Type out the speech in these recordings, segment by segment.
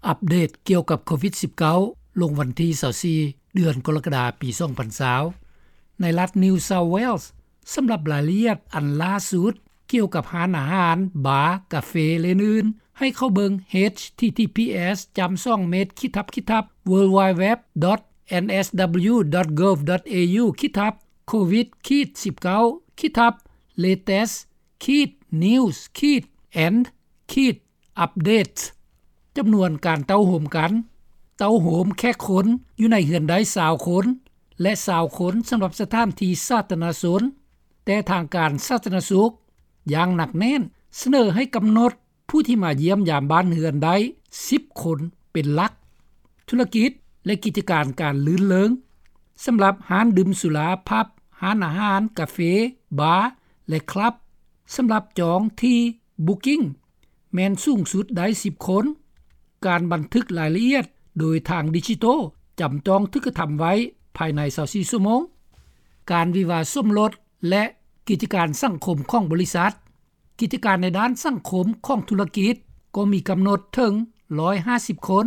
ອັບເດດກ່ຽວກັບໂຄວິດສິບເກົ້າ ລົງວັນທີຊາວສີ່ ເດືອນກໍລະກະດາ ປີສອງພັນຊາວ ໃນລັດ New South Wales. ສຳລັບລາຍລະອຽດອັນລ່າສຸດກ່ຽວກັບຮ້ານອາຫານ, ບາ, ກາເຟ ແລະ ອື່ນໆ ໃຫ້ເຂົ້າເບິ່ງ ເອດເອັດ ທີ ທີ ພີ ເອັດ ສອງ ເມັດ ຂີດທັບ ຂີດທັບ ເວີລວາຍເວັບ ດອດ ເອັນ ເອສ ດັບເບິນຢູ ດອດ ໂກວ ດອດ ເອຢູ ຂີດທັບ ໂຄວິດ ຂີດ ສິບເກົ້າ ຂີດທັບ ເລເຕັສ ຂີດ ນິວສ໌ ຂີດ ແອນ ຂີດ ອັບເດດ. ຈຳນວນການເຕົ້າໂຮມກັນ, ເຕົ້າໂຮມແຂກຄົນຢູ່ໃນເຮືອນໄດ້ຊາວຄົນ ແລະ ຊາວຄົນສຳລັບສະຖານທີ່ສາທາລະນະຊົນ, ແຕ່ທາງການສາທາລະນະສຸກຢ່າງໜັກແໜ້ນສະເໜີໃຫ້ກຳນົດຜູ້ທີ່ມາຢ້ຽມຢາມບ້ານເຮືອນໄດ້ສິບຄົນເປັນຫຼັກ. ທຸລະກິດ ແລະ ກິດຈະການການລື່ນເລີງ ສຳລັບຮ້ານດື່ມສຸລາ, ຜັບ, ຮ້ານອາຫານ, ກາເຟ, ບາ ແລະ ຄລັບ ສຳລັບຈອງທີ່ Booking ແມ່ນສູງສຸດໄດ້ສິບຄົນ. ການບັນທຶກລາຍລະອຽດໂດຍທາງດິຈິໂຕຈຳຕ້ອງຖືກກະທຳໄວ້ພາຍໃນຊາວສີ່ຊົ່ວໂມງ. ການວິວາສົມລົດ ແລະ ກິດຈະການສັງຄົມຂອງບໍລິສັດ. ກິດຈະການໃນດ້ານສັງຄົມຂອງທຸລະກິດກໍມີກຳນົດເຖິງຮ້ອຍຫ້າສິບຄົນ,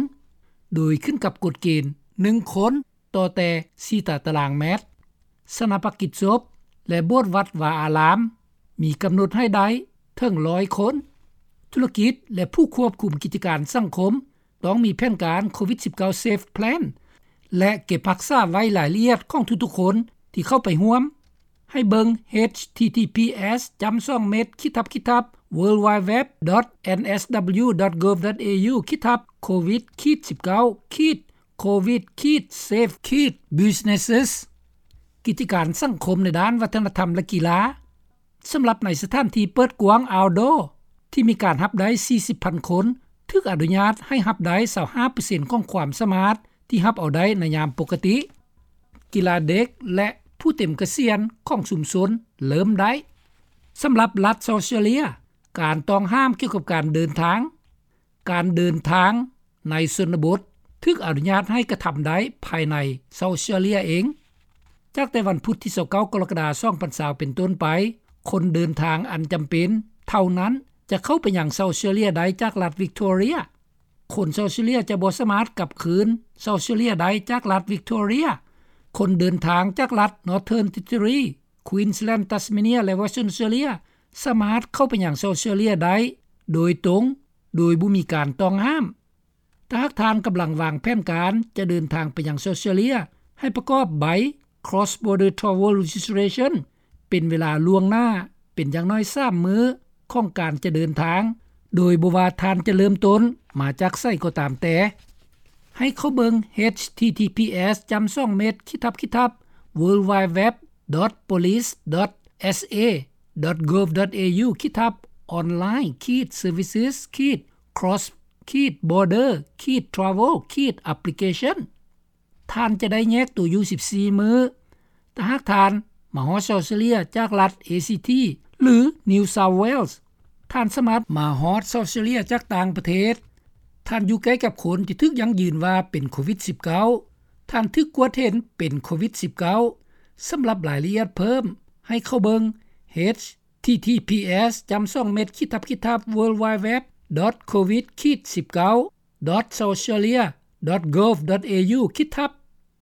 ໂດຍຂຶ້ນກັບກົດເກນໜຶ່ງຄົນຕໍ່ແຕ່ສີ່ຕາຕະລາງແມັດ. ສະໜາປະກິດສົບ ແລະ ໂບດວັດວາອາລາມ ມີກຳນົດໃຫ້ໄດ້ເຖິງຮ້ອຍຄົນ. ທຸລະກິດ ແລະ ຜູ້ຄວບຄຸມກິດຈະການສັງຄົມ ຕ້ອງມີແຜນການໂຄວິດສິບເກົ້າ ເຊຟ ແພລນ ແລະ ເກັບຮັກສາໄວ້ລາຍລະອຽດຂອງທຸກໆຄົນທີ່ເຂົ້າໄປຮ່ວມ. ໃຫ້ເບິ່ງ ເອດເອັດ ທີ ທີ ພີ ເອັດ ສອງ ເມັດ ຂີດທັບ ຂີດທັບ ເວີລວາຍເວັບ ດອດ ເອັນ ເອສ ດັບເບິນຢູ ດອດ ໂກວ ດອດ ເອຢູ ຂີດທັບ ໂຄວິດ ຂີດ ສິບເກົ້າ ຂີດ ໂຄວິດ ຂີດ ເຊຟ ຂີດ ບິດເນັສ. ກິດຈະການສັງຄົມໃນດ້ານວັດທະນະທຳ ແລະ ກິລາ ສຳລັບໃນສະຖານທີ່ເປີດກວ້າງ ເອົາດໍ ທີ່ມີການຮັບໄດ້ສີ່ສິບພັນຄົນ ຖືກອະນຸຍາດໃຫ້ຮັບໄດ້ຊາວຫ້າເປີເຊັນຂອງຄວາມສາມາດທີ່ຮັບເອົາໄດ້ໃນຍາມປົກກະຕິ. ກິລາເດັກ ແລະ ຜູ້ເຕັມກະສຽນຂອງຊຸມຊົນເລີ່ມໄດ້. ສຳລັບລັດເຊົາເຊເລັຍ ການຕ້ອງຫ້າມກ່ຽວກັບການເດີນທາງ. ການເດີນທາງໃນຊົນນະບົດຖືກອະນຸຍາດໃຫ້ກະທຳໄດ້ພາຍໃນເຊົາເຊເລັຍເອງ. ຈາກແຕ່ວັນພຸດທີຊາວເກົ້າ ກໍລະກະດາ ສອງພັນຊາວ ເປັນຕົ້ນໄປ, ຄົນເດີນທາງອັນຈຳເປັນເທົ່ານັ້ນຈະເຂົ້າໄປຍັງເຊົາເຊເລັຍໄດ້ຈາກລັດວິກຕໍເຣັຍ. ຄົນເຊົາເຊເລັຍຈະບໍ່ສາມາດກັບຄືນເຊົາເຊເລັຍໄດ້ຈາກລັດວິກຕໍເຣັຍ. ຄົນເດີນທາງຈາກລັດ Northern Territory, Queensland, Tasmania ແລະ Western Australia ສາມາດເຂົ້າໄປຍັງເຊົາເຊເລັຍໄດ້ໂດຍຕົງ ໂດຍບໍ່ມີການຕ້ອງຫ້າມ. ຖ້າຫາກທ່ານກຳລັງວາງແຜນການຈະເດີນທາງໄປຍັງເຊົາເຊເລັຍ, ໃຫ້ປະກອບໃບ Cross Border Travel Registration ເປັນເວລາລ່ວງໜ້າເປັນຢ່າງໜ້ອຍສາມມື້ຂອງການຈະເດີນທາງ, ໂດຍບໍ່ວ່າທ່ານຈະເລີ່ມຕົ້ນມາຈາກໃສກໍຕາມແຕ່. ໃຫ້ເຂົ້າເບິ່ງ ເອດເອັດ ທີ ທີ ພີ ເອັດ ສອງ ເມັດ ຂີດທັບ ຂີດທັບ ເວີລວາຍເວັບ ດອດ ໂພລີສ ດອດ ເອສ ເອ ດອດ ໂກວ ດອດ ເອຢູ ຂີດທັບ ອອນລາຍ ຂີດ ເຊີວິສ ຂີດ ຄຣອສ ຂີດ ບອເດີ ຂີດ ທຣາເວວ ຂີດ ແອັບພລິເຄຊັນ. ທ່ານຈະໄດ້ແຍກຕົວຢູ່ສິບສີ່ມື້. ຖ້າຫາກທ່ານມາຮອດເຊົາເຊເລັຍຈາກລັດ ເອ ຊີ ທີ ຫຼື New South Wales, ທ່ານສາມາດມາຮອດເຊົາເຊເລັຍຈາກຕ່າງປະເທດ. ທ່ານຢູ່ໃກ້ກັບຄົນທີ່ຖືກຢັ້ງຢືນວ່າເປັນໂຄວິດສິບເກົ້າ. ທ່ານຖືກກວດເຫັນເປັນໂຄວິດສິບເກົ້າ. ສຳລັບລາຍລະອຽດເພີ່ມ, ໃຫ້ເຂົ້າເບິ່ງ ເອດເອັດ ທີ ທີ ພີ ເອັດ ສອງ ເມັດ ຂີດທັບ ຂີດທັບ ເວີລວາຍເວັບ ດອດ ໂຄວິດ ຂີດ ສິບເກົ້າ ດອດ ເຊົາເຊເລັຍ ດອດ ໂກວ ດອດ ເອຢູ ຂີດທັບ